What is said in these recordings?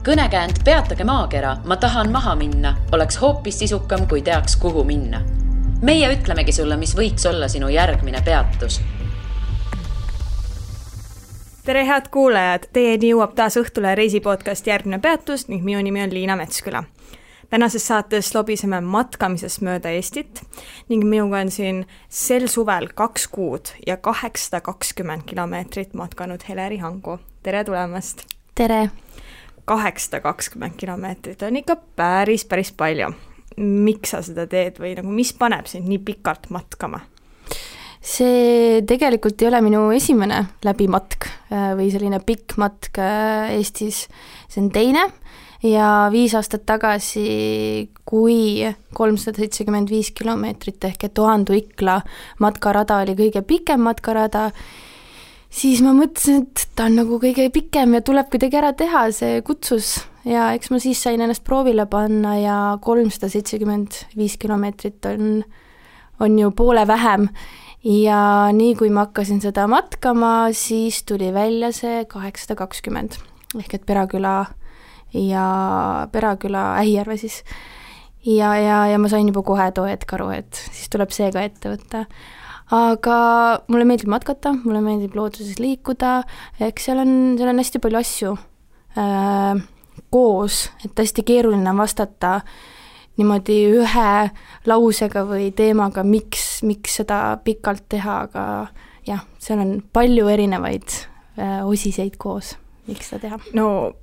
Kõnekäänd Peatage maakera, ma tahan maha minna, oleks hoopis sisukam, kui teaks, kuhu minna. Meie ütlemegi sulle, mis võiks olla sinu järgmine peatus. Tere head kuulajad, teieni jõuab taas Õhtule reisipodcast Järgmine peatus ning minu nimi on Liina Metsküla. Tänases saates lobiseme matkamisest mööda Eestit ning minuga on siin sel suvel 2 kuud ja 820 kilomeetrit matkanud Heleri Hangu. Tere tulemast! Tere! 820 kilomeetrit on ikka päris palju. Miks sa seda teed või nagu, mis paneb sind nii pikalt matkama? See tegelikult ei ole minu esimene läbimatk või selline pikk matk Eestis. See on teine ja 5 aastat tagasi, kui 375 kilomeetrit ehk et Ohandu-Ikla matkarada oli kõige pikem matkarada, siis ma mõtlesin, et ta on nagu kõige pikem ja tuleb kuidagi ära teha, see kutsus. Ja eks ma siis sain ennast proovile panna ja 375 kilomeetrit on ju poole vähem. Ja nii kui ma hakkasin seda matkama, siis tuli välja see 820 ehk et Peraküla Ähijärve siis. Ja ma sain juba kohe too hetk aru, et siis tuleb see ka ette võtta. Aga mulle meeldib matkata, mulle meeldib looduses liikuda, eks seal on hästi palju asju koos, et hästi keeruline vastata niimoodi ühe lausega või teemaga, miks seda pikalt teha, aga jah, seal on palju erinevaid osiseid koos, miks seda teha. No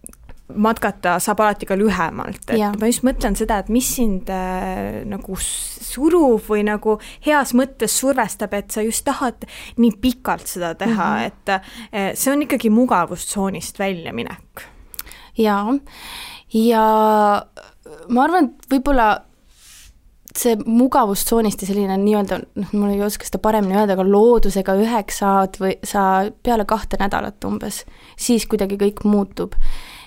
matkata saab alati ka lühemalt, et ma just mõtlen seda, et mis sind nagu surub või nagu heas mõttes survestab, et sa just tahad nii pikalt seda teha, et see on ikkagi mugavustsoonist väljaminek. Ja ma arvan, et võib-olla see mugavustsoonist ja selline nii-öelda, mul ei oska seda paremini öelda, aga loodusega üheks saad või sa peale 2 nädalat umbes, siis kuidagi kõik muutub.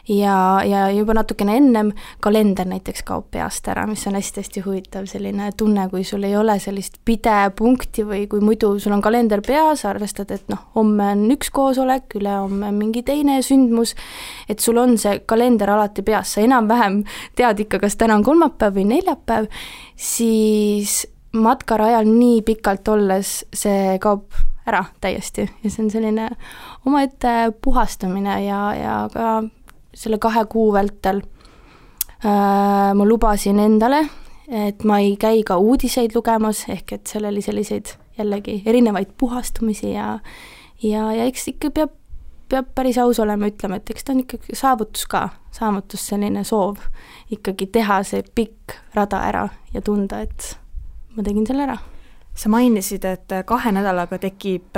Ja juba natukene ennem kalender näiteks kaob peast ära, mis on hästi huvitav selline tunne, kui sul ei ole sellist pidepunkti või kui muidu sul on kalender peas, arvestad, et homme on üks koosolek, ülehomme mingi teine sündmus, et sul on see kalender alati peas, sa enam-vähem tead ikka, kas täna on kolmapäev või neljapäev, siis matkarajal nii pikalt olles see kaob ära täiesti ja see on selline omaette puhastamine ja ka selle 2 kuu vältel ma lubasin endale, et ma ei käi ka uudiseid lugemas, ehk et seal oli selliseid jällegi erinevaid puhastumisi ja eks ikka peab päris aus olema, ütlema, et eks ta on ikkagi saavutus selline soov ikkagi teha see pikk rada ära ja tunda, et ma tegin selle ära. Sa mainisid, et 2 nädalaga tekib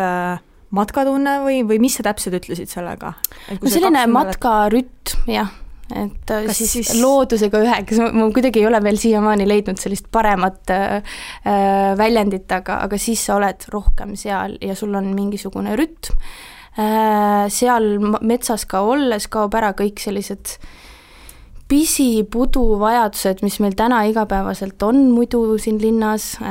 matkatunne või mis sa täpselt ütlesid sellega? Selline matkarütm, jah, et siis loodusega üheks, ma kuidagi ei ole veel siiamaani leidnud sellist paremat väljendit, aga siis sa oled rohkem seal ja sul on mingisugune rütm. Seal metsas ka olles kaob ära kõik sellised pisipudu vajadused, mis meil täna igapäevaselt on muidu siin linnas,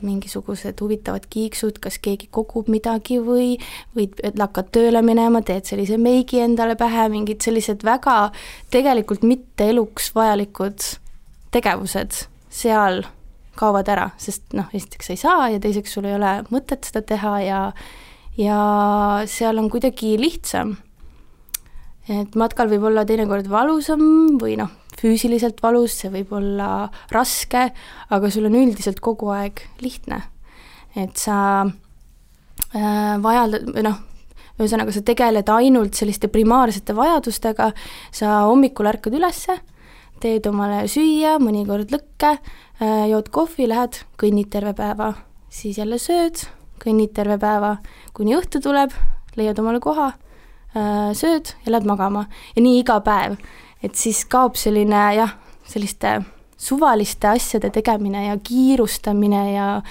mingisugused huvitavad kiiksud, kas keegi kogub midagi või hakkad tööle minema, teed sellise meigi endale pähe, mingid sellised väga tegelikult mitte eluks vajalikud tegevused seal kaovad ära, sest esiteks sa ei saa ja teiseks sul ei ole mõtet seda teha ja seal on kuidagi lihtsam. Et matkal võib olla teinekord valusam või füüsiliselt valus, see võib olla raske, aga sul on üldiselt kogu aeg lihtne. Et sa ühesõnaga sa tegeled ainult selliste primaarsete vajadustega, sa hommikul ärkad ülesse, teed omale süüa, mõnikord lõkke, jood kohvi, lähed, kõnnid terve päeva, siis jälle sööd, kõnnid terve päeva, kuni õhtu tuleb, leiad omale koha, sööd ja lähed magama ja nii iga päev, et siis kaob selline selliste suvaliste asjade tegemine ja kiirustamine ja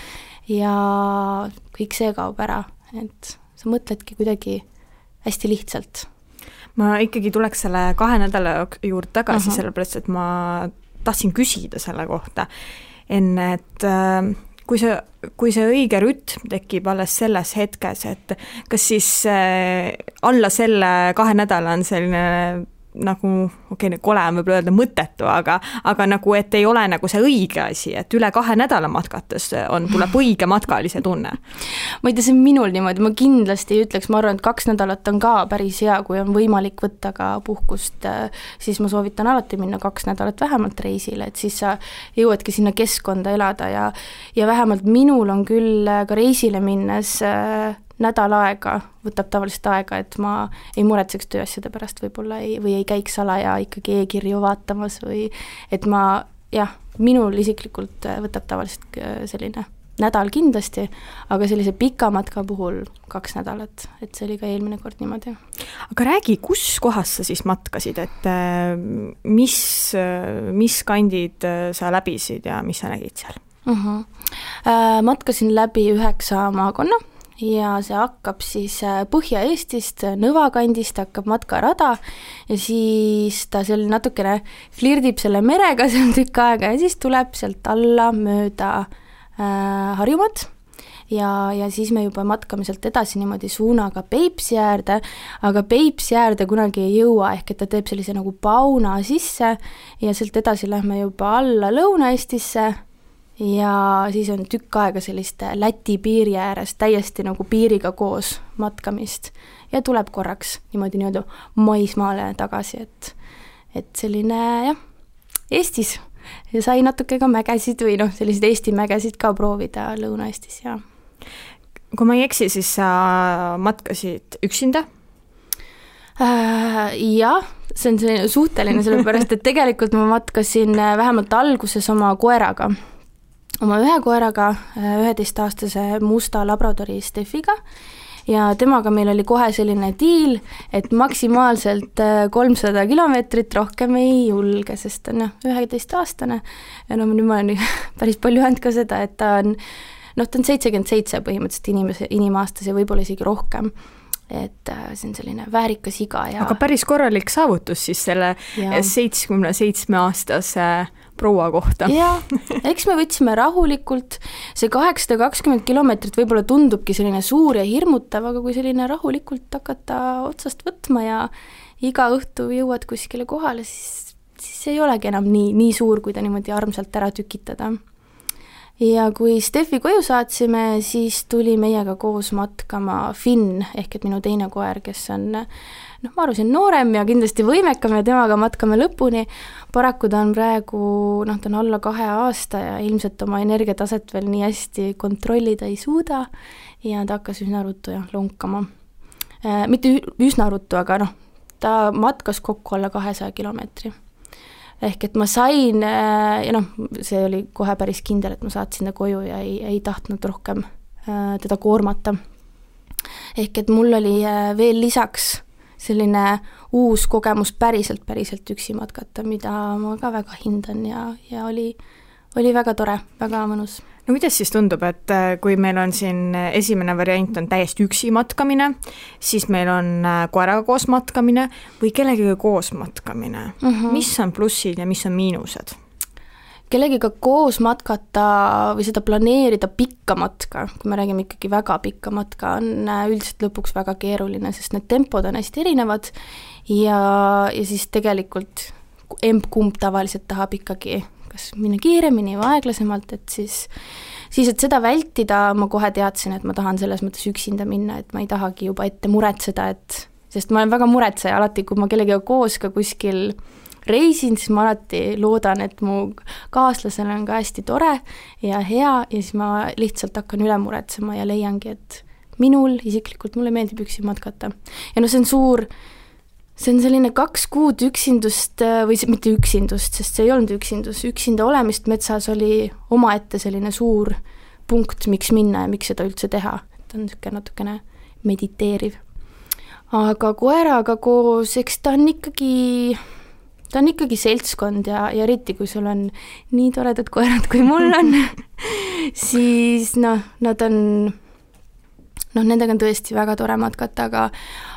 kõik see kaob ära, et sa mõtledki kuidagi hästi lihtsalt. Ma ikkagi tuleks selle 2 nädala juurde tagasi, sellepärast, et ma tahtsin küsida selle kohta enne, et kui see õige rütm tekib alles selles hetkes, et kas siis alla selle 2 nädala on selline nagu, kole on võib-olla öelda mõttetu, aga nagu, et ei ole nagu see õige asi, et üle 2 nädala matkates tuleb õige matkalise tunne. Ma ei tea, see on minul niimoodi, ma kindlasti ei ütleks, ma arvan, et 2 nädalat on ka päris hea, kui on võimalik võtta ka puhkust, siis ma soovitan alati minna 2 nädalat vähemalt reisile, et siis sa jõuadki sinna keskkonda elada ja vähemalt minul on küll ka reisile minnes nädal aega, võtab tavaliselt aega, et ma ei muretseks tööasjade pärast võib-olla või ei käiks salaja ikkagi e-kirju vaatamas või et ma, minul isiklikult võtab tavaliselt selline nädal kindlasti, aga sellise pika matka puhul 2 nädalat, et see oli ka eelmine kord niimoodi. Aga räägi, kus kohas sa siis matkasid, et mis kandid sa läbisid ja mis sa nägid seal? Matkasin läbi 9 maakonna ja see hakkab siis Põhja-Eestist, Nõva kandist hakkab matkarada ja siis ta seal natukene flirdib selle merega seal tükk aega ja siis tuleb sealt alla mööda Harjumaad ja siis me juba matkame sealt edasi niimoodi suunaga Peipsi äärde, aga Peipsi äärde kunagi ei jõua, ehk et ta teeb sellise nagu pauna sisse ja sealt edasi lähme juba alla Lõuna-Eestisse ja siis on tükk aega sellist Läti piiri ääres täiesti nagu piiriga koos matkamist ja tuleb korraks niimoodi maismaale tagasi, et selline Eestis ja sai natuke ka mägesid või selliseid Eesti mägesid ka proovida Lõuna-Eestis ja. Kui ma ei eksi, siis sa matkasid üksinda? Jah, see on selline suhteline, sellepärast, et tegelikult ma matkasin vähemalt alguses oma koeraga. Oma ühe koeraga, 11-aastase musta labradori Steffiga ja temaga meil oli kohe selline diil, et maksimaalselt 300 kilomeetrit rohkem ei julge, sest on 11-aastane ja nüüd ma olen päris palju öelnud ka seda, et ta on 77 põhimõtteliselt inimaastas ja võib-olla isegi rohkem. Et see on selline väärikas iga ja... Aga päris korralik saavutus siis selle 77-aastase proua kohta. Ja, eks me võtsime rahulikult, see 820 kilomeetrit võib-olla tundubki selline suur ja hirmutav, aga kui selline rahulikult hakata otsast võtma ja iga õhtu jõuad kuskile kohale, siis ei olegi enam nii suur, kui ta niimoodi armsalt ära tükitada. Ja kui Steffi koju saatsime, siis tuli meiega koos matkama Finn, ehk et minu teine koer, kes on, ma arvasin noorem ja kindlasti võimekam ja temaga matkame lõpuni. Paraku ta on praegu, ta on alla 2 aasta ja ilmselt oma energiataset veel nii hästi kontrollida ei suuda ja ta hakkas üsna ruttu lonkama. Mitte üsna ruttu, aga ta matkas kokku alla 200 kilomeetri. Ehk et ma sain, ja see oli kohe päris kindel, et ma saatsin ta koju ja ei tahtnud rohkem teda koormata. Ehk et mul oli veel lisaks selline uus kogemus päriselt üksi matkata, mida ma ka väga hindan ja oli väga tore, väga mõnus. No kuidas siis tundub, et kui meil on siin esimene variant on täiesti üksi matkamine, siis meil on koeraga koos matkamine või kellegiga koos matkamine? Mis on plussid ja mis on miinused? Kellegiga koos matkata või seda planeerida pikka matka, kui me räägime ikkagi väga pikka matka, on üldiselt lõpuks väga keeruline, sest need tempod on hästi erinevad ja siis tegelikult kumb tavaliselt tahab ikkagi kas minna kiiremini või aeglasemalt, et siis et seda vältida, ma kohe teadsin, et ma tahan selles mõttes üksinda minna, et ma ei tahagi juba ette muretseda, sest ma olen väga muretseja alati, kui ma kellegiga koos ka kuskil reisin, siis ma alati loodan, et mu kaaslasel on ka hästi tore ja hea ja siis ma lihtsalt hakkan üle muretsema ja leiangi, et isiklikult mulle meeldib üksi matkata. Ja see on selline 2 kuud üksindust või mitte üksindust, sest see ei olnud üksinda olemist metsas oli omaette selline suur punkt, miks minna ja miks seda üldse teha. Et on natukene mediteeriv. Aga koeraga koos, eks ta on ikkagi seltskond ja eriti kui sul on nii toredad koerad kui mul on, siis nad on... nendega on tõesti väga tore matkata,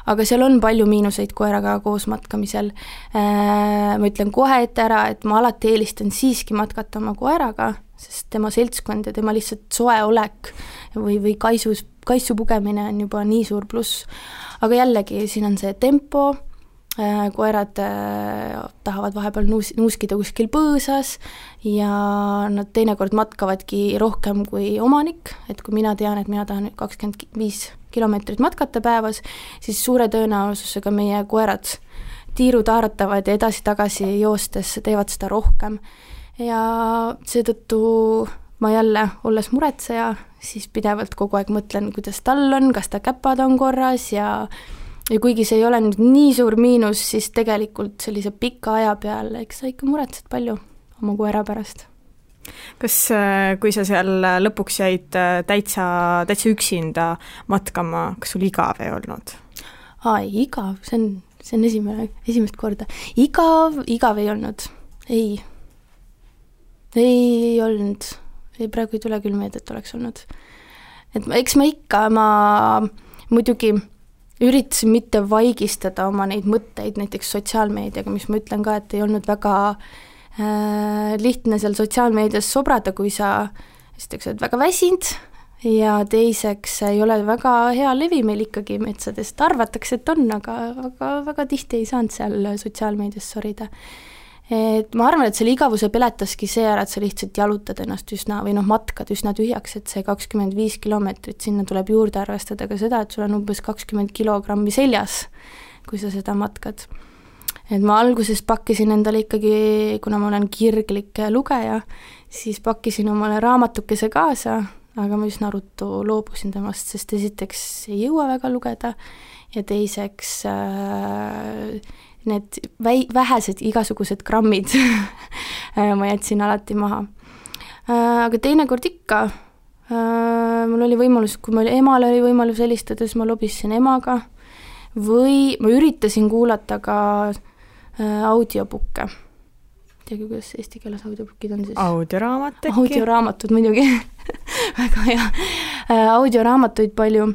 aga seal on palju miinuseid koeraga koos matkamisel. Ma ütlen kohe ette ära, et ma alati eelistan siiski matkata oma koeraga, sest tema seltskond ja tema lihtsalt soe olek või kaisu pugemine on juba nii suur pluss. Aga jällegi, siin on see tempo, koerad tahavad vahepeal nuuskida kuskil põõsas ja nad teinekord matkavadki rohkem kui omanik, et kui mina tean, et mina tahan 25 kilomeetrit matkata päevas, siis suure tõenäosusega meie koerad tiirutaaratavad ja edasi-tagasi joostes teevad seda rohkem. Ja seetõttu ma jälle, olles muretseja, siis pidevalt kogu aeg mõtlen, kuidas tal on, kas ta käpad on korras ja kuigi see ei ole nüüd nii suur miinus, siis tegelikult sellise pika aja peal, eks sa ikka muretsed palju oma koera pärast. Kas, kui sa seal lõpuks jäid täitsa üksinda matkama, kas sul igav ei olnud? Igav, see on esimest korda. Igav ei olnud, ei olnud, praegu ei tule küll meelde, et oleks olnud. Et eks ma muidugi üritasin mitte vaigistada oma neid mõtteid näiteks sotsiaalmeediaga, mis ma ütlen ka, et ei olnud väga lihtne seal sotsiaalmeedias sobrada, kui sa esiteks oled väga väsinud ja teiseks ei ole väga hea levi meil ikkagi metsadest, arvatakse, et on, aga väga tihti ei saanud seal sotsiaalmeedias sorida. Et ma arvan, et selle igavuse peletaski see ära, et sa lihtsalt jalutad ennast matkad üsna tühjaks, et see 25 kilomeetrit, sinna tuleb juurde arvestada ka seda, et sul on umbes 20 kilogrammi seljas, kui sa seda matkad. Et ma alguses pakkisin endale ikkagi, kuna ma olen kirglik lugeja, siis pakkisin omale raamatukese kaasa, aga ma üsna ruttu loobusin temast, sest esiteks ei jõua väga lugeda ja teiseks need vähesed igasugused grammid ma jätsin alati maha. Aga teinekord ikka, mul oli võimalus, kui mul emale oli võimalus helistada, siis ma lobisin emaga või ma üritasin kuulata ka audiobukke. Teagi, kuidas eesti keeles audiobukid on siis? Audioraamat äkki? Audioraamatud muidugi, väga hea. Audioraamatuid palju.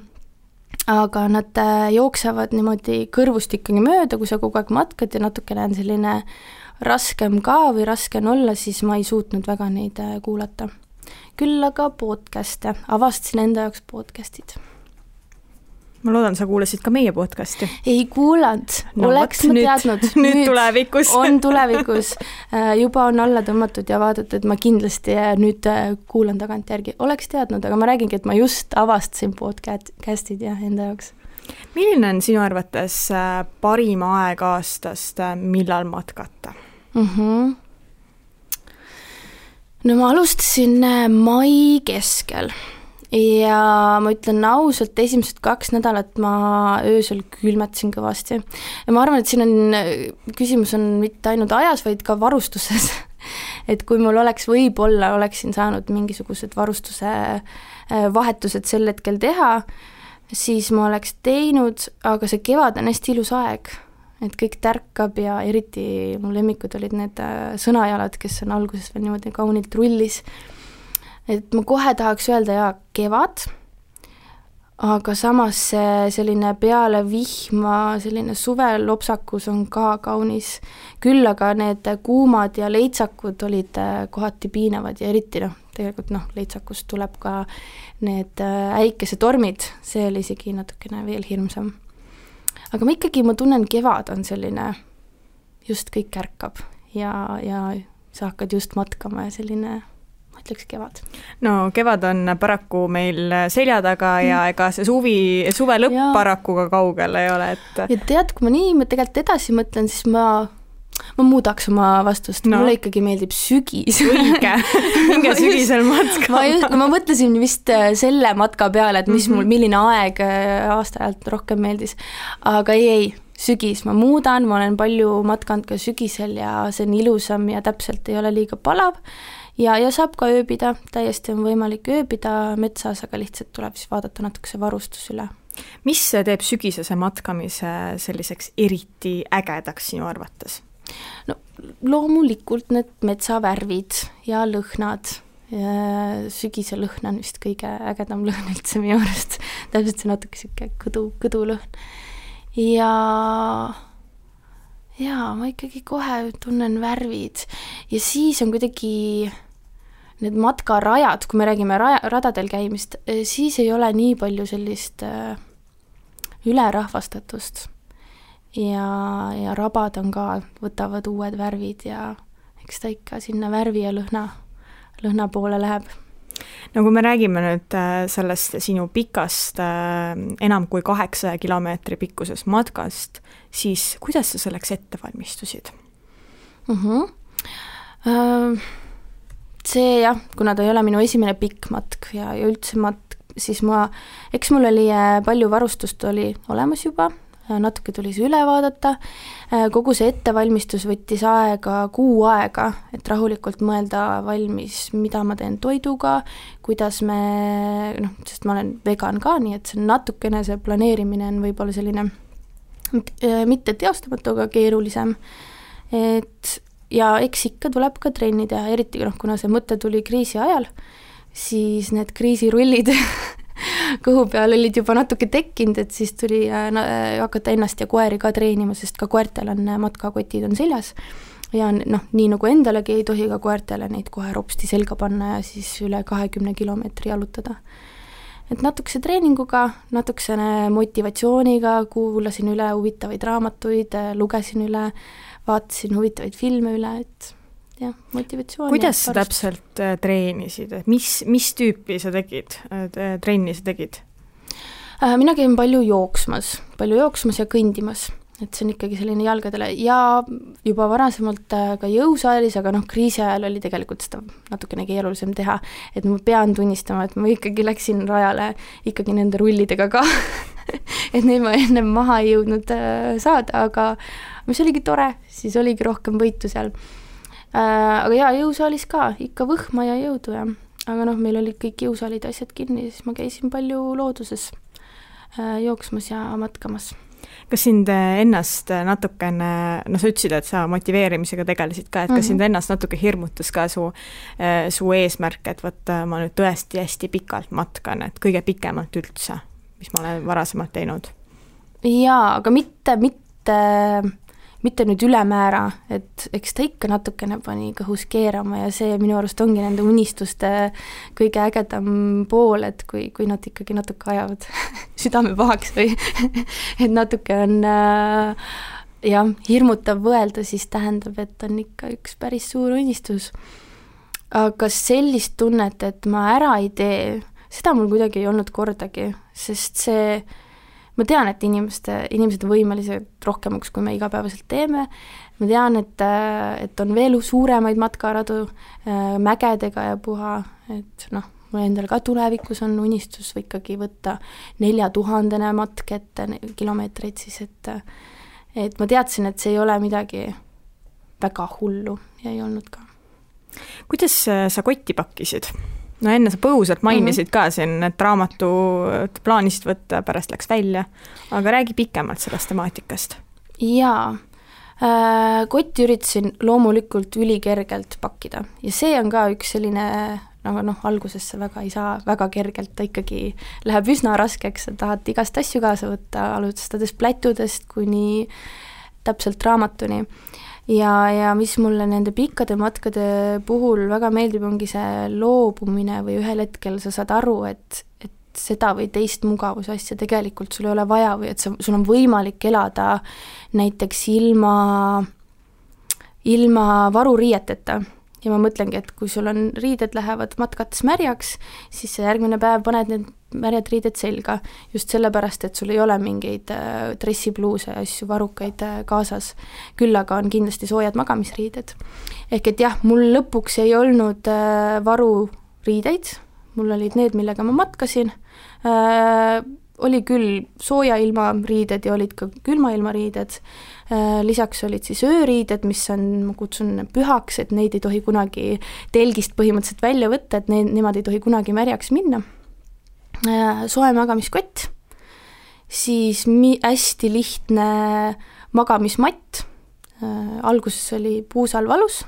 Aga nad jooksevad niimoodi kõrvust ikkagi mööda, kui sa kogu aeg matkad ja natukene on selline raskem ka või raske on olla, siis ma ei suutnud väga neid kuulata. Küll aga podcast'e, avastasin enda jaoks podcast'id. Ma loodan, sa kuulasid ka meie podcasti. Ei kuulanud, oleks ma teadnud. Nüüd tulevikus. On tulevikus. Juba on alla tõmmatud ja vaadatud, et ma kindlasti nüüd kuulan tagant järgi. Oleks teadnud, aga ma räägingi, et ma just avastasin podcastid ja enda jaoks. Milline on sinu arvates parim aeg aastast, millal matkata? No ma alustasin mai keskel. Ja ma ütlen ausalt, esimesed 2 nädalat ma öösel külmetasin kõvasti. Ja ma arvan, et siin küsimus on mitte ainult ajas, vaid ka varustuses. Et kui mul võib-olla oleksin saanud mingisugused varustuse vahetused sel hetkel teha, siis ma oleks teinud, aga see kevad on hästi ilus aeg. Et kõik tärkab ja eriti mu lemmikud olid need sõnajalad, kes on alguses veel niimoodi kaunilt rullis. Et ma kohe tahaks öelda kevad, aga samas selline peale vihma, selline suvelopsakus on ka kaunis. Küll aga need kuumad ja leitsakud olid kohati piinavad ja eriti tegelikult leitsakust tuleb ka need äikesetormid, see oli isegi natukene veel hirmsam. Aga ma tunnen, kevad on selline, just kõik ärkab ja sa hakkad just matkama ja selline ütleks kevad. No kevad on paraku meil selja taga ja ega see suve lõpp paraku ka kaugel ei ole. Et... Ja tead, kui ma tegelikult edasi mõtlen, siis ma muudaks oma vastust. Mulle ikkagi meeldib sügis. Õige, minge sügisel matka. Ma mõtlesin vist selle matka peale, et milline aeg aastaajalt rohkem meeldis. Aga ei, sügis ma muudan, ma olen palju matkanud ka sügisel ja see on ilusam ja täpselt ei ole liiga palav. Ja saab ka ööbida, täiesti on võimalik ööbida metsas, aga lihtsalt tuleb siis vaadata natukese varustus üle. Mis teeb sügisese matkamise selliseks eriti ägedaks sinu arvates? No, loomulikult need metsavärvid ja lõhnad. Sügise lõhn on vist kõige ägedam lõhn üldse minu arust. Täpselt see natuke siuke kõdulõhn. Ja ma ikkagi kohe tunnen värvid. Ja siis on kuidagi need matkarajad, kui me räägime radadel käimist, siis ei ole nii palju sellist ülerahvastatust. ja rabad on ka, võtavad uued värvid ja eks ta ikka sinna värvi ja lõhna poole läheb. No kui me räägime nüüd sellest sinu pikast enam kui 8 kilomeetri pikkusest matkast, siis kuidas sa selleks ette valmistusid? See jah, kuna ta ei ole minu esimene pikk matk ja üldse matk, siis eks mul oli palju varustust oli olemas juba, natuke tuli see üle vaadata, kogu see ettevalmistus võttis aega 6 aega, et rahulikult mõelda valmis, mida ma teen toiduga, kuidas sest ma olen vegan ka, nii et see natukene see planeerimine on võib-olla selline mitte teostamatu, aga keerulisem, ja eks ikka tuleb ka trenni teha, eriti kuna see mõte tuli kriisi ajal, siis need kriisirullid kõhu peal olid juba natuke tekkinud, et siis tuli hakata ennast ja koeri ka treenima, sest ka koertel on matkakotid on seljas ja nii nagu endalegi ei tohi ka koertele neid kohe ropsti selga panna ja siis üle 20 kilomeetri jalutada. Et natukese treeninguga, natukesene motivatsiooniga, kuulasin üle huvitavaid raamatuid, lugesin üle, vaatasin huvitavaid filme üle, et jah, motivatsiooni. Kuidas sa täpselt treenisid? Mis tüüpi sa tegid, trenni sa tegid? Mina käin palju jooksmas ja kõndimas, et see on ikkagi selline jalgadele ja juba varasemalt ka jõusaalis, aga kriisi ajal oli tegelikult seda natukene keerulisem teha, et ma pean tunnistama, et ma ikkagi läksin rajale ikkagi nende rullidega ka, et neid ma enne maha ei jõudnud saada, aga mis oligi tore, siis oligi rohkem võitu seal. Aga jaa, jõusaalis ka, ikka võhma ja jõudu ja. Aga meil olid kõik jõusaalid asjad kinni, siis ma käisin palju looduses jooksmas ja matkamas. Kas sind ennast natukene, sa ütlesid, et sa motiveerimisega tegelesid ka, et kas sind ennast natuke hirmutas ka su eesmärk, et võtta ma nüüd tõesti hästi pikalt matkan, et kõige pikemalt üldse, mis ma olen varasemalt teinud? Jaa, aga mitte nüüd ülemäära, et eks ta ikka natukene pani kõhus keerama ja see minu arust ongi nende unistuste kõige ägedam pool, et kui nad ikkagi natuke ajavad südame pahaks või et natuke on hirmutav võelda, siis tähendab, et on ikka üks päris suur unistus. Aga sellist tunnet, et ma ära ei tee, seda mul kuidagi ei olnud kordagi, sest ma tean, et inimesed on võimelised rohkemaks, kui me igapäevaselt teeme. Ma tean, et on veel suuremaid matkaradu mägedega ja puha, et mul endal ka tulevikus on unistus või ikkagi võtta 4000 matk ette kilomeetreid siis, et ma teadsin, et see ei ole midagi väga hullu ja ei olnud ka. Kuidas sa kotti pakkisid? Enne sa põgusalt mainisid ka siin, et raamatu plaanisid võtta, pärast läks välja, aga räägi pikemalt sellest temaatikast. Jaa, kotti üritasin loomulikult ülikergelt pakkida ja see on ka üks selline, alguses see väga ei saa väga kergelt, ta ikkagi läheb üsna raskeks, sa tahad igast asju kaasa võtta, alustades plätudest kuni täpselt raamatuni. Ja mis mulle nende pikkade matkade puhul väga meeldib, ongi see loobumine või ühel hetkel sa saad aru, et seda või teist mugavusasja tegelikult sul ei ole vaja või et sul on võimalik elada näiteks ilma varuriieteta. Ja ma mõtlengi, et kui sul on riided lähevad matkates märjaks, siis järgmine päev paned need märjad riided selga, just sellepärast, et sul ei ole mingeid dressipluuse ja asju varukaid kaasas. Küll aga on kindlasti soojad magamisriided. Ehk et jah, mul lõpuks ei olnud varuriideid, mul olid need, millega ma matkasin. Oli küll sooja ilma riided ja olid ka külma ilma riided. Lisaks olid siis ööriided, mis on, ma kutsun pühaks, et neid ei tohi kunagi telgist põhimõtteliselt välja võtta, et nemad ei tohi kunagi märjaks minna. Soe magamiskott, siis hästi lihtne magamismatt, alguses oli puusal valus,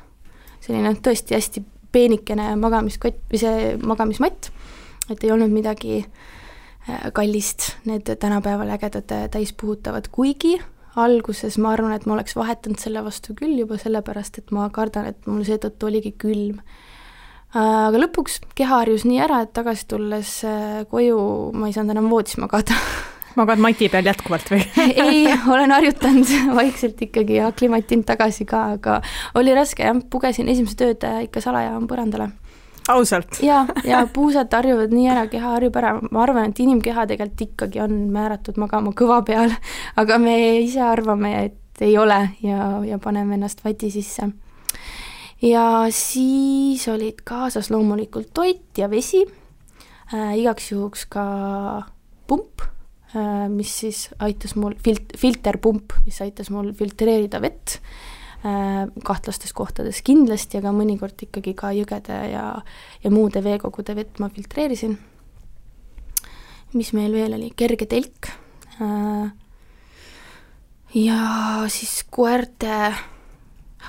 selline tõesti hästi peenikene magamiskott või see magamismatt, et ei olnud midagi kallist, need tänapäeval ägedad täispuhutavad, kuigi alguses ma arvan, et ma oleks vahetanud selle vastu küll juba sellepärast, et ma kardan, et mul seetõttu oligi külm. Aga lõpuks keha harjus nii ära, et tagasi tulles koju ma ei saanud enam voodis magada. magad mati peal jätkuvalt või? Ei, olen harjutanud vaikselt ikkagi ja aklimatinud tagasi ka, aga oli raske jah, pugesin esimesed ööd ikka salaja põrandale. Ausalt? ja puusad harjuvad nii ära, keha harjub ära, ma arvan, et inimkeha tegelikult ikkagi on määratud magama kõva peal, aga me ise arvame, et ei ole ja paneme ennast vati sisse. Ja siis olid kaasas loomulikult toit ja vesi, igaks juhuks ka pump, mis siis aitas mul, filterpump, mis aitas mul filtreerida vett kahtlastes kohtades kindlasti, aga mõnikord ikkagi ka jõgede ja muude veekogude vett ma filtreerisin. Mis meil veel oli? Kerge telk. Ja siis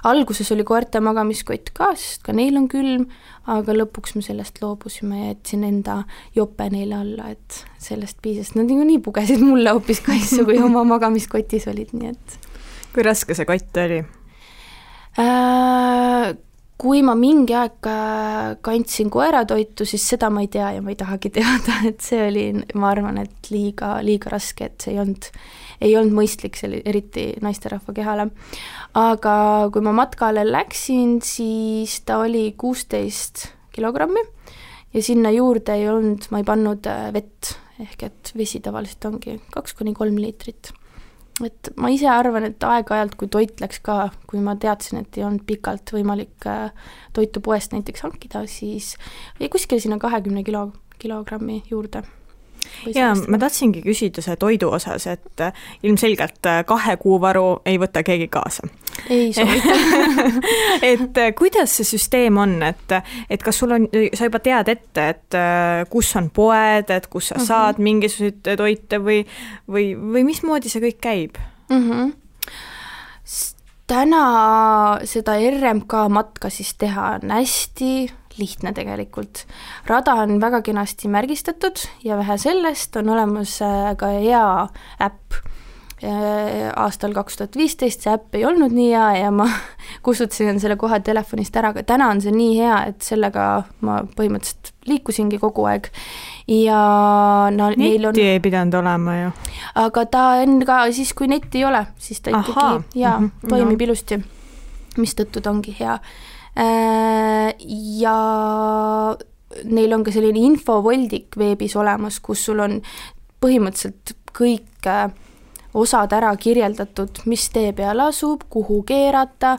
alguses oli koerte magamiskott ka, sest ka neil on külm, aga lõpuks me sellest loobusime ja jätsin enda jope neile alla, et sellest piisas. Nad nii pugesid mulle hoopis kaisu, kui oma magamiskotis olid, nii et... Kui raske see kott oli? Kui ma mingi aeg kandsin koeratoitu, siis seda ma ei tea ja ma ei tahagi teada, et see oli, ma arvan, et liiga raske, et see ei olnud mõistlik, eriti naisterahva kehale. Aga kui ma matkale läksin, siis ta oli 16 kilogrammi ja sinna juurde ma ei pannud vett, ehk et vesi tavaliselt ongi 2-3 liitrit. Et ma ise arvan, et aeg-ajalt, kui toit läks ka, kui ma teadsin, et ei olnud pikalt võimalik toitu poest näiteks hankida, siis jäi kuskil sinna 20 kilogrammi juurde. Ja ma tahtsingi küsida see toidu osas, et ilmselgelt 2 kuu varu ei võta keegi kaasa. Ei soovita. Et kuidas see süsteem on, et kas sul on, sa juba tead ette, et kus on poed, et kus sa saad mingisuguseid toite või mismoodi see kõik käib? Täna seda RMK matka siis teha on hästi lihtne tegelikult. Rada on väga kenasti märgistatud ja vähe sellest on olemas ka hea äpp. Aastal 2015 see äpp ei olnud nii hea ja ma kustutasin selle kohe telefonist ära, aga täna on see nii hea, et sellega ma põhimõtteliselt liikusingi kogu aeg. Ja netti ei pidanud olema ju. Aga ta on ka siis, kui netti ei ole, siis ta ikkagi toimib ilusti, mis tõttu ta ongi hea. Ja neil on ka selline infovoldik veebis olemas, kus sul on põhimõtteliselt kõik osad ära kirjeldatud, mis tee peal asub, kuhu keerata,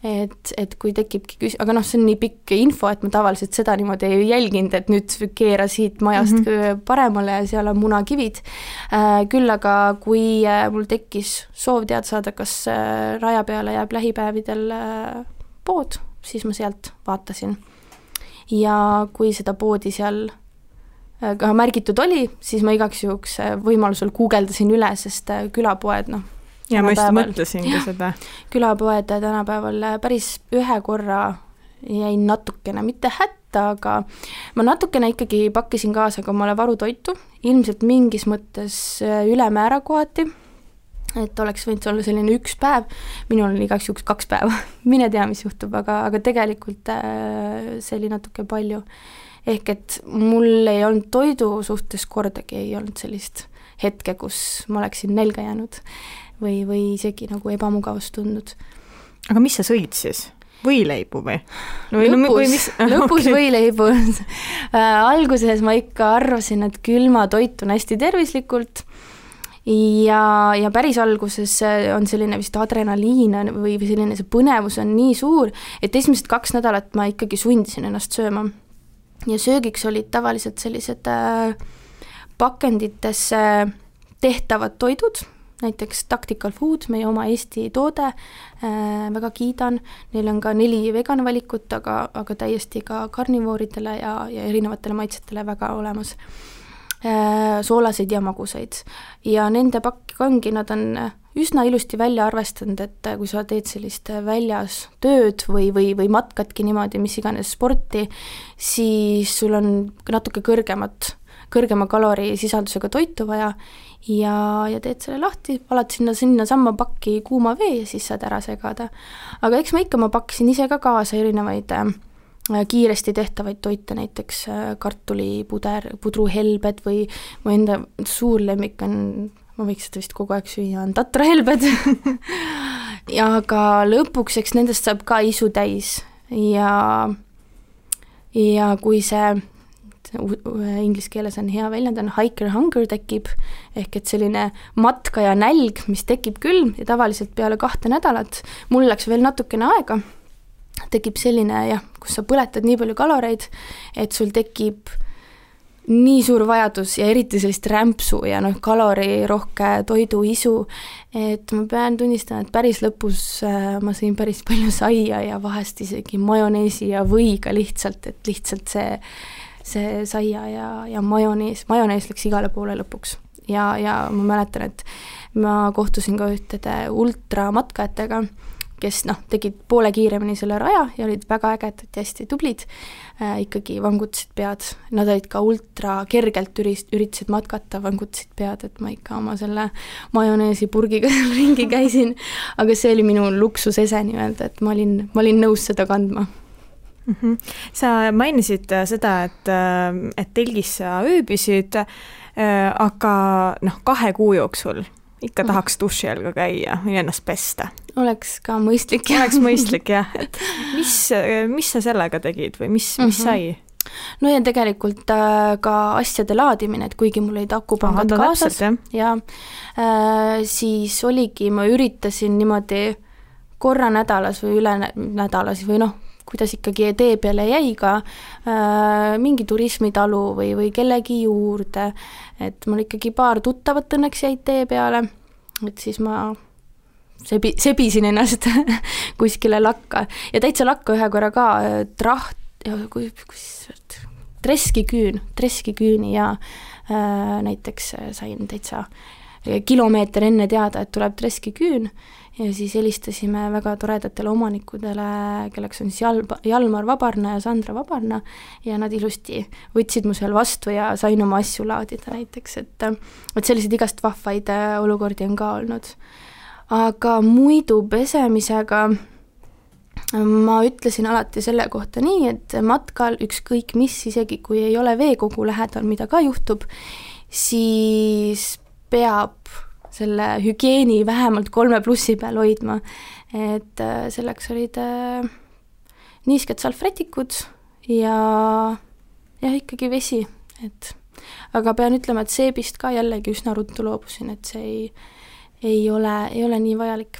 et kui tekibki aga see on nii pikk info, et ma tavaliselt seda niimoodi ei jälginud, et nüüd keera siit majast paremale ja seal on munakivid. Küll aga kui mul tekkis soov teada saada, kas raja peale jääb lähipäevidel pood, siis ma sealt vaatasin. Ja kui seda poodi seal ka märgitud oli, siis ma igaks juhuks võimalusel guugeldasin üle, sest külapoed, ja ma just mõtlesingi seda. Külapoed tänapäeval päris ühe korra jäin natukene, mitte hätta, aga ma natukene ikkagi pakkisin kaasa ka omale varutoitu, ilmselt mingis mõttes ülemäära kohati, et oleks võinud olla selline 1 päev, minul oli igaks juhuks 2 päeva, mine tea, mis juhtub, aga tegelikult see oli natuke palju. Ehk et mul ei olnud toidu suhtes kordagi, ei olnud sellist hetke, kus ma oleksin nälga jäänud või isegi nagu ebamugavust tundnud. Aga mis sa sõid siis? Võileibu või? Lõpus võileibu. Alguses ma ikka arvasin, et külma toit on hästi tervislikult ja päris alguses on selline vist adrenaliin või selline see põnevus on nii suur, et esimesed 2 nädalat ma ikkagi sundisin ennast sööma. Ja söögiks olid tavaliselt sellised pakendites tehtavad toidud, näiteks Tactical Food, meie oma Eesti toode, väga kiidan. Neil on ka 4 veganvalikut, aga täiesti ka karnivooridele ja erinevatele maitsetele väga olemas. Soolaseid ja magusaid. Ja nende pakk ongi, nad on üsna ilusti välja arvestanud, et kui sa teed sellist väljas tööd või matkadki niimoodi, mis iganes sporti, siis sul on natuke kõrgema kalorisisaldusega toitu vaja ja teed selle lahti, valad sinna samma pakki kuuma vee ja siis saad ära segada. Aga eks ma pakkisin ise ka kaasa erinevaid kiiresti tehtavaid toite, näiteks pudruhelbed või mu enda suur lemmik on, ma võiks seda vist kogu aeg süüa, on tatrahelbed ja aga lõpuks, eks nendest saab ka isu täis ja kui see inglise keeles on hea väljend, on hiker hunger tekib, ehk et selline matka ja nälg, mis tekib küll ja tavaliselt peale 2 nädalat, mul läks veel natukene aega, tekib selline kus sa põletad nii palju kaloreid, et sul tekib nii suur vajadus ja eriti sellist rämpsu ja kalorirohke toiduisu, et ma pean tunnistama, et päris lõpus ma sõin päris palju saia ja vahest isegi majoneesi ja võiga lihtsalt, et lihtsalt see saia ja majonees läks igale poole lõpuks. Ja ma mäletan, et ma kohtusin ka ühtede ultramatkajatega, kes tegid poole kiiremini selle raja ja olid väga ägedad ja hästi tublid, ikkagi vangutasid pead. Nad olid ka ultra kergelt üritasid matkata, vangutasid pead, et ma ikka oma selle majoneesi purgiga ringi käisin, aga see oli minu luksusese nii-öelda, et ma olin nõus seda kandma. Sa mainisid seda, et telgis sa ööbisid, aga 2 kuu jooksul ikka tahaks duši all ka käia või ennast pesta. Oleks ka mõistlik. Oleks mõistlik, jah. Et mis sa sellega tegid või mis sai? No ja tegelikult ka asjade laadimine, et kuigi mul olid akupangad kaasas, siis oligi, ma üritasin niimoodi korra nädalas või üle nädalas või kuidas ikkagi tee peale jäi ka mingi turismitalu või kellegi juurde, et mul ikkagi paar tuttavat õnneks jäid tee peale, et siis ma sebisin ennast kuskile lakka ja täitsa lakka ühe korra ka treskiküüni ja näiteks sain täitsa kilomeeter enne teada, et tuleb treskiküün ja siis helistasime väga toredatele omanikudele, kelleks on siis Jalmar Vabarna ja Sandra Vabarna ja nad ilusti võtsid mu seal vastu ja sain oma asju laadida näiteks, et selliseid igast vahvaid olukordi on ka olnud. Aga muidu pesemisega ma ütlesin alati selle kohta nii, et matkal ükskõik mis, isegi kui ei ole veekogu lähedal, mida ka juhtub, siis peab selle hügieeni vähemalt 3+ peal hoidma, et selleks olid niisked salvrätikud ja ikkagi vesi, et aga pean ütlema, et seebist ka jällegi üsna ruttu loobusin, et see ei ole nii vajalik.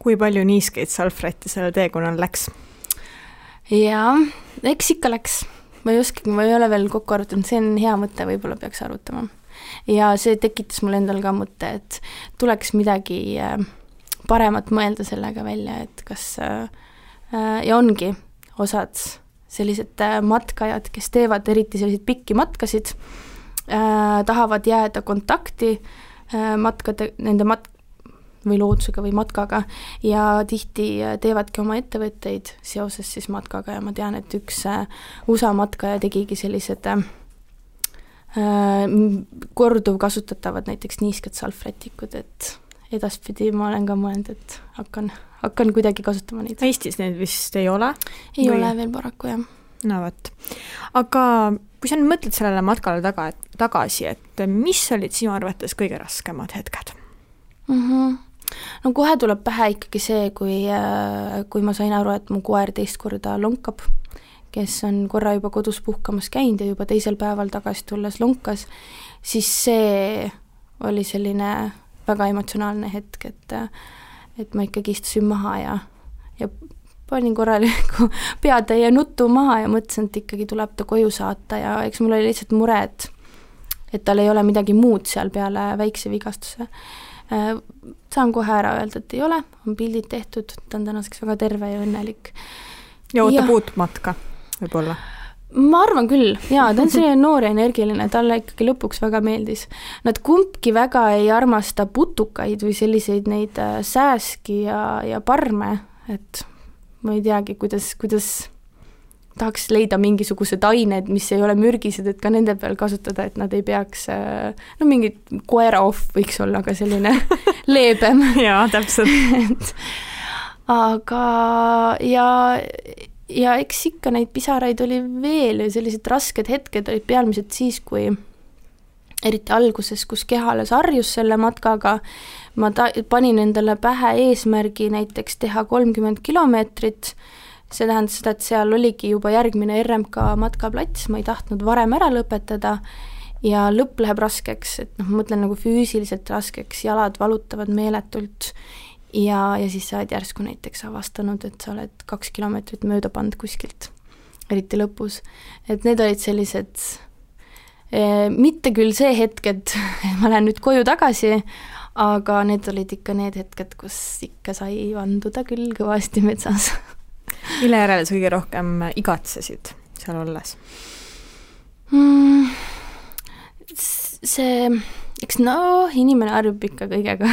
Kui palju niiskeid salvrätti selle teekonnal läks? Jaa, eks ikka läks. Ma ei ole veel kokku arutanud, see on hea mõte, võib-olla peaks arutama. Ja see tekitas mul endal ka mõte, et tuleks midagi paremat mõelda sellega välja, et kas ja ongi osad sellised matkajad, kes teevad eriti selliseid pikki matkasid, tahavad jääda kontakti nende või loodusega või matkaga ja tihti teevadki oma ettevõtteid seoses siis matkaga ja ma tean, et üks USA matkaja tegigi sellised korduv kasutatavad näiteks niisked salvrätikud, et edaspidi ma olen ka mõelnud, et hakkan kuidagi kasutama neid. Eestis need vist ei ole? Ei ole veel paraku, jah. No võt. Aga kui sa nüüd mõtled sellele matkale tagasi, et mis olid sinu arvates kõige raskemad hetked? No kohe tuleb pähe ikkagi see, kui ma sain aru, et mu koer 2 korda lonkab, kes on korra juba kodus puhkamas käinud ja juba 2. päeval tagasi tulles lonkas, siis see oli selline väga emotsionaalne hetk, et ma ikkagi istusin maha ja panin korraliku peatäie nuttu maha ja mõtlesin, et ikkagi tuleb ta koju saata ja eks mul oli lihtsalt mure, et tal ei ole midagi muud seal peale väikse vigastuse. Saan kohe ära öelda, et ei ole, on pildid tehtud, ta on tänaseks väga terve ja õnnelik. Ja ootab uut matka, võib-olla? Ma arvan küll, jaa, ta on selline noor ja energiline, talle ikkagi lõpuks väga meeldis. Nad kumbki väga ei armasta putukaid või selliseid neid sääski ja parme, et ma ei teagi, kuidas tahaks leida mingisugused ained, mis ei ole mürgised, et ka nende peal kasutada, et nad ei peaks, mingi koera off võiks olla ka selline leebem. Jaa, täpselt. Aga ja eks ikka neid pisaraid oli veel ja sellised rasked hetked olid pealmiselt siis, kui eriti alguses, kus keha alles harjus selle matkaga, ma panin endale pähe eesmärgi näiteks teha 30 kilomeetrit, see tähendas seda, et seal oligi juba järgmine RMK matkaplats, ma ei tahtnud varem ära lõpetada ja lõpp läheb raskeks, et noh, ma mõtlen nagu füüsiliselt raskeks, jalad valutavad meeletult ja siis sa oled järsku näiteks avastanud, et sa oled 2 kilomeetrit mööda pannud kuskilt, eriti lõpus. Et need olid sellised, mitte küll see hetk, et ma lähen nüüd koju tagasi, aga need olid ikka need hetked, kus ikka sai vanduda küll kõvasti metsas. Mille järele sa kõige rohkem igatsesid seal olles? See, eks inimene harjub ikka kõigega,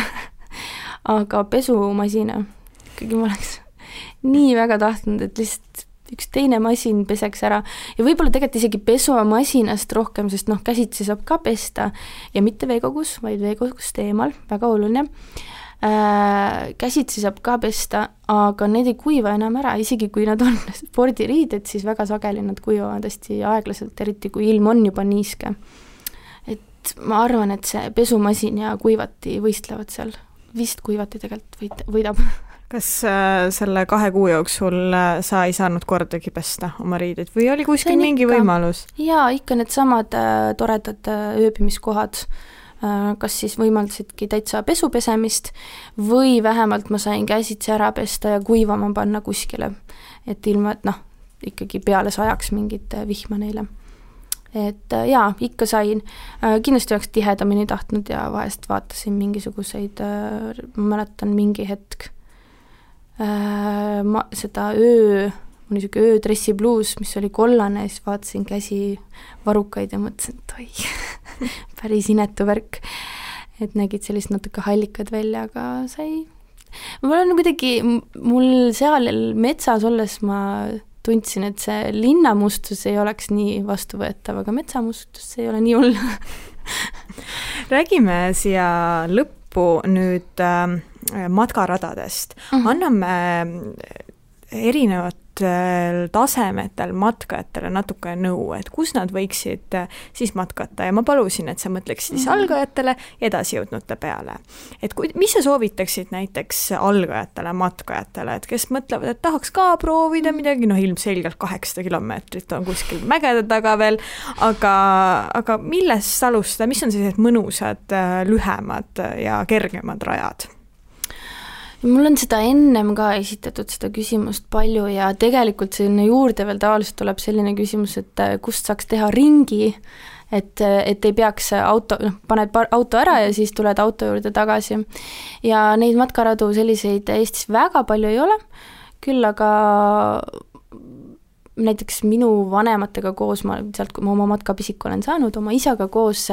aga pesumasina, ikkagi ma oleks nii väga tahtnud, et lihtsalt üks teine masin peseks ära ja võib-olla tegelikult isegi pesumasinast rohkem, sest käsitsi saab ka pesta ja mitte veekogus, vaid veekogust eemal, väga oluline. Käsitsi saab ka pesta, aga need ei kuiva enam ära, isegi kui nad on spordiriided, siis väga sageli nad kuivavad hästi aeglaselt, eriti kui ilm on juba niiske. Et ma arvan, et see pesumasin ja kuivati võistlevad seal, vist kuivati tegelikult võidab. Kas selle 2 kuu jooksul sa ei saanud kordagi pesta oma riided või oli kuskil mingi võimalus? Jaa, ikka need samad toredad ööbimiskohad, kas siis võimaldasidki täitsa pesupesemist või vähemalt ma sain käsitsi ära pesta ja kuivama panna kuskile, et ilma, et ikkagi peale sajaks mingit vihma neile. Et jaa, ikka sain. Kindlasti oleks tihedamini tahtnud ja vahest vaatasin mingisuguseid, ma mäletan mingi hetk, seda mul niisugune öödressi bluus, mis oli kollane, siis vaatasin käsi varukaid ja mõtlesin, et oi, päris inetu värk, et nägid sellist natuke hallikad välja, aga sai. Mul seal metsas olles ma tundsin, et see linnamustus ei oleks nii vastuvõetav, aga metsamustus ei ole nii hull. Räägime siia lõppu nüüd matkaradadest. Anname erinevatel tasemetel matkajatele natuke nõu, et kus nad võiksid siis matkata ja ma palusin, et sa mõtleksid siis algajatele ja edasijõudnute peale. Et mis sa soovitaksid näiteks algajatele, matkajatele, et kes mõtlevad, et tahaks ka proovida midagi, ilmselgelt 800 kilomeetrit on kuskil mägede taga veel, aga millest alustada, mis on sellised mõnusad, lühemad ja kergemad rajad? Mul on seda ennem ka esitatud seda küsimust palju ja tegelikult selline juurde veel tavaliselt tuleb selline küsimus, et kust saaks teha ringi, et ei peaks paned auto ära ja siis tuled auto juurde tagasi. Ja neid matkaradu selliseid Eestis väga palju ei ole, küll aga näiteks minu vanematega koos, sealt kui ma oma matkapisiku olen saanud, oma isaga koos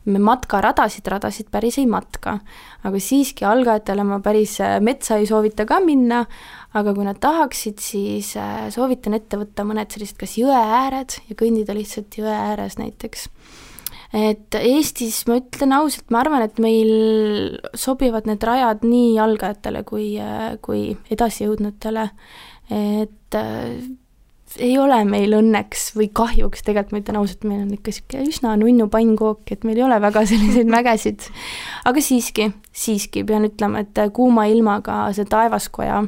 me matkaradasid päris ei matka. Aga siiski algajatele ma päris metsa ei soovita ka minna, aga kui nad tahaksid, siis soovitan ette võtta mõned sellised kas jõe ääred ja kõndida lihtsalt jõe ääres näiteks. Et Eestis, ma ütlen ausalt, ma arvan, et meil sobivad need rajad nii algajatele kui edasijõudnutele, et ei ole meil õnneks või kahjuks, tegelikult ma ütlen ausalt, meil on ikka üsna nunnu pannkook, et meil ei ole väga selliseid mägesid, aga siiski pean ütlema, et kuuma ilmaga see Taevaskoja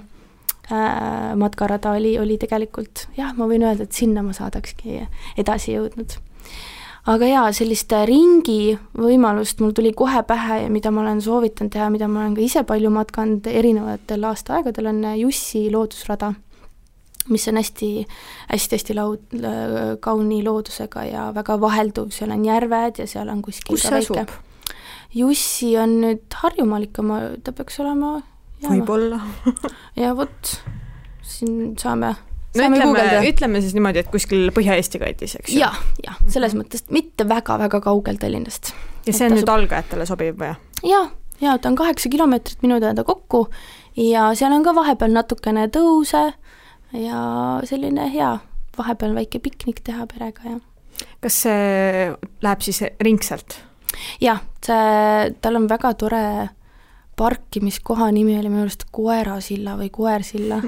matkarada oli tegelikult, jah, ma võin öelda, et sinna ma saadakski edasi jõudnud. Aga jaa, sellist ringi võimalust mul tuli kohe pähe ja mida ma olen soovitanud teha, mida ma olen ka ise palju matkanud erinevatel aastaaegadel, on Jussi loodusrada, mis on hästi kauni loodusega ja väga vahelduv, seal on järved ja seal on kuskil kus see asub? Jussi on nüüd Harjumaal ikka, ta peaks olema võib-olla. ja vot, siin saame ütleme siis niimoodi, et kuskil Põhja-Eesti kandis, eks ju? Ja, selles mõttes mitte väga-väga kaugel Tallinnast. Ja see on nüüd algajatele sobib või? Ja, ta on 8 kilomeetrit minu teada kokku ja seal on ka vahepeal natukene tõuse ja selline hea vahepeal väike piknik teha perega. Ja. Kas see läheb siis ringselt? Jah, tal on väga tore parkimiskoha nimi oli minu arust Koerasilla või Koersilla.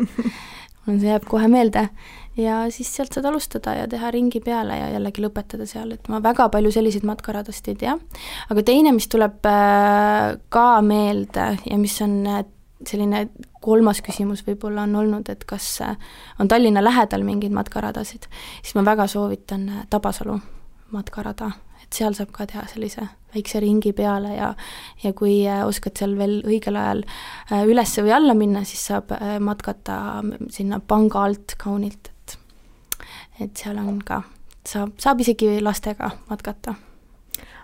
see jääb kohe meelde ja siis sealt saad alustada ja teha ringi peale ja jällegi lõpetada seal, et ma väga palju selliseid matkaradast ei tea. Aga teine, mis tuleb ka meelde ja mis on selline 3. küsimus võib-olla on olnud, et kas on Tallinna lähedal mingeid matkaradasid, siis ma väga soovitan Tabasalu matkarada, et seal saab ka teha sellise väikse ringi peale ja kui oskad seal veel õigel ajal üles või alla minna, siis saab matkata sinna panga alt kaunilt, et seal on ka, saab isegi lastega matkata.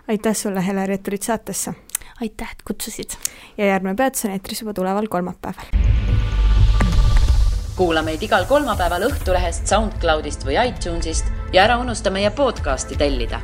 Aitäh sulle, Heleri, et tulid saatesse! Aitäh, et kutsusid! Ja järgmine peatus on eetris juba tuleval kolmapäeval. Kuula meid igal kolmapäeval Õhtulehest, SoundCloudist või iTunesist ja ära unusta meie podcasti tellida.